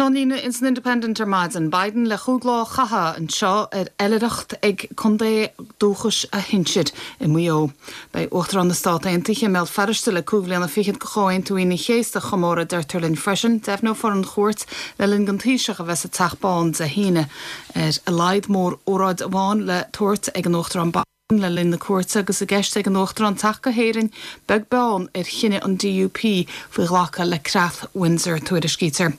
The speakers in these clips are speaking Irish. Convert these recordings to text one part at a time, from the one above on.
Ceannlíne ins an Independent ar maidin, Biden le chúig lá a chaitheamh anseo ar oilithreacht ag contae dúchais a shinsir i Maigh Eo. Beidh Uachtarán na Stát Aontaithe i mBéal Feirste le cúig bhliana fichead de Chomhaontú Aoine an Chéasta a chomóradh, deirtear linn freisin. Deimhneofar an chuairt le linn don Taoiseach a bheith sa Teach Bán Dé hAoine. Ar a laghad mór-óráid amháin le tabhairt ag an Uachtarán Biden le linn na cuairte agus i gceist ag an Uachtarán teacht go hÉirinn beag beann ar chinneadh an DUP faoi ghlacadh le Creat Windsor, tuairiscítear.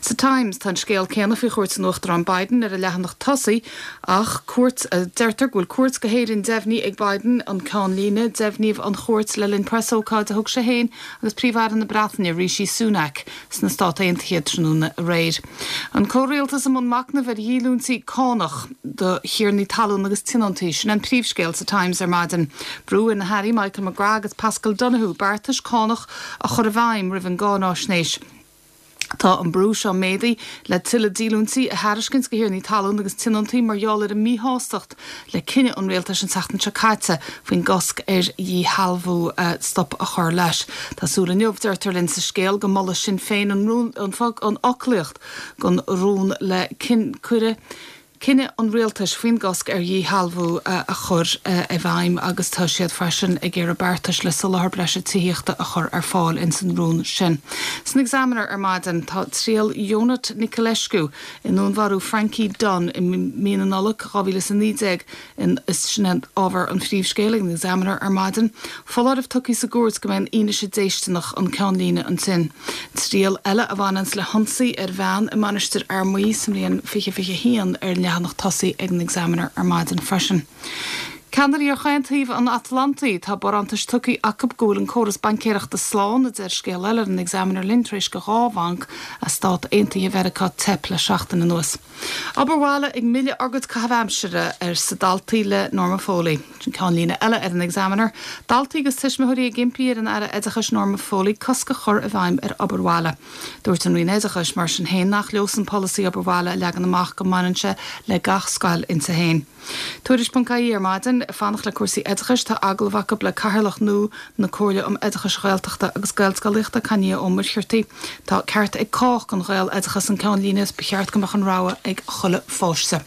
Sa Times, tá an scéal céanna faoi chuairt an Uachtaráin Biden ar an leathanach tosaigh ach cuairt, deirtear go bhfuil cuairt go hÉirinn deimhnithe ag Biden, an ceannlíne. Deimhníodh an chuairt le linn preasócáid a thug sé féin agus Príomh-Aire na Breataine, Rishi Sunak, sna Stát Aontaithe tráthnóna aréir. An comhrialtas i mbun machnaimh ar dhíolúintí cánach do thiarnaí talún agus tionóntaí, sin an príomhscéal sa Times ar maidin. Brú ar na hairí Michael McGrath agus Paschal Donohoe beartais cánach a chur i bhfeidhm roimh an gcáináisnéis. Tá an brú seo méadaithe le tuilleadh díolúintí a thairiscint do thiarnaí talún agus tionóntaí mar gheall ar an míshástacht le cinneadh an rialtais an tseachtain seo caite faoin gcosc ar dhíshealbhú stop a chur leis. Tá súil inniu, deirtear linn sa scéal, go molfaidh Sinn Féin an rún, an fhoclaíocht den rún le cuireadh cinneadh an rialtais faoin gcosc ar dhíshealbhú a chur i bhfeidhm agus tá siad freisin ag iarraidh beartais le soláthar breise tithíochta a chur ar fáil ins an rún sin. San Examiner ar maidin tá triail Ionut Niculescu i ndúnmharú Frankie Dunne i mí na Nollag 2019 in is sin é ábhar an phríomhscéil ag an Examiner ar maidin. Foláireamh tugtha sa gcúirt go mbeidh an fhianaise déisteanach an ceannlíne ansin. Triail eile a bhaineanns le hionsaí ar bhean i Mainistir Fhear Maí sa mbliain 2021 ar an leathanach tosaigh ag an Examiner ar maidin freisin. Ceannairí ar chaon taobh an Atlantaigh, tá barántais tugtha acu go bhfuil an córas baincéireachta slán, a deir scéal eile ar an Examiner linn tar éis do dhá bhanc as Stát Aontaithe Mheiriceá teip le seachtain anuas. Obair bhaile ag milleadh ár gcuid caitheamh aimsire, arsa daltaí le Norma Foley. Sin ceannlíne eile ar an Examiner. Daltaí agus tuismitheoirí ag impí ar an Aire Oideachais Norma Foley cosc a chur i bhfeidhm ar obair bhaile. Dúirt an Roinn Oideachais, mar sin féin, nach leosan polasaí obair bhaile a leagan amach go mbaineann sé le gach scoil inti féin. Tuairisc.ie ar maidin, ag fanacht le cúrsaí oideachais, tá agallamh acu le Cathaoirleach nua na Comhairle um Oideachais Ghaeltachta agus Gaelscolaíochta, Cainnío Ó Muircheartaigh. Tá ceart ag cách don Ghaeloideachas an ceannlíne is ba cheart go mbeadh an rogha ag chuile pháiste.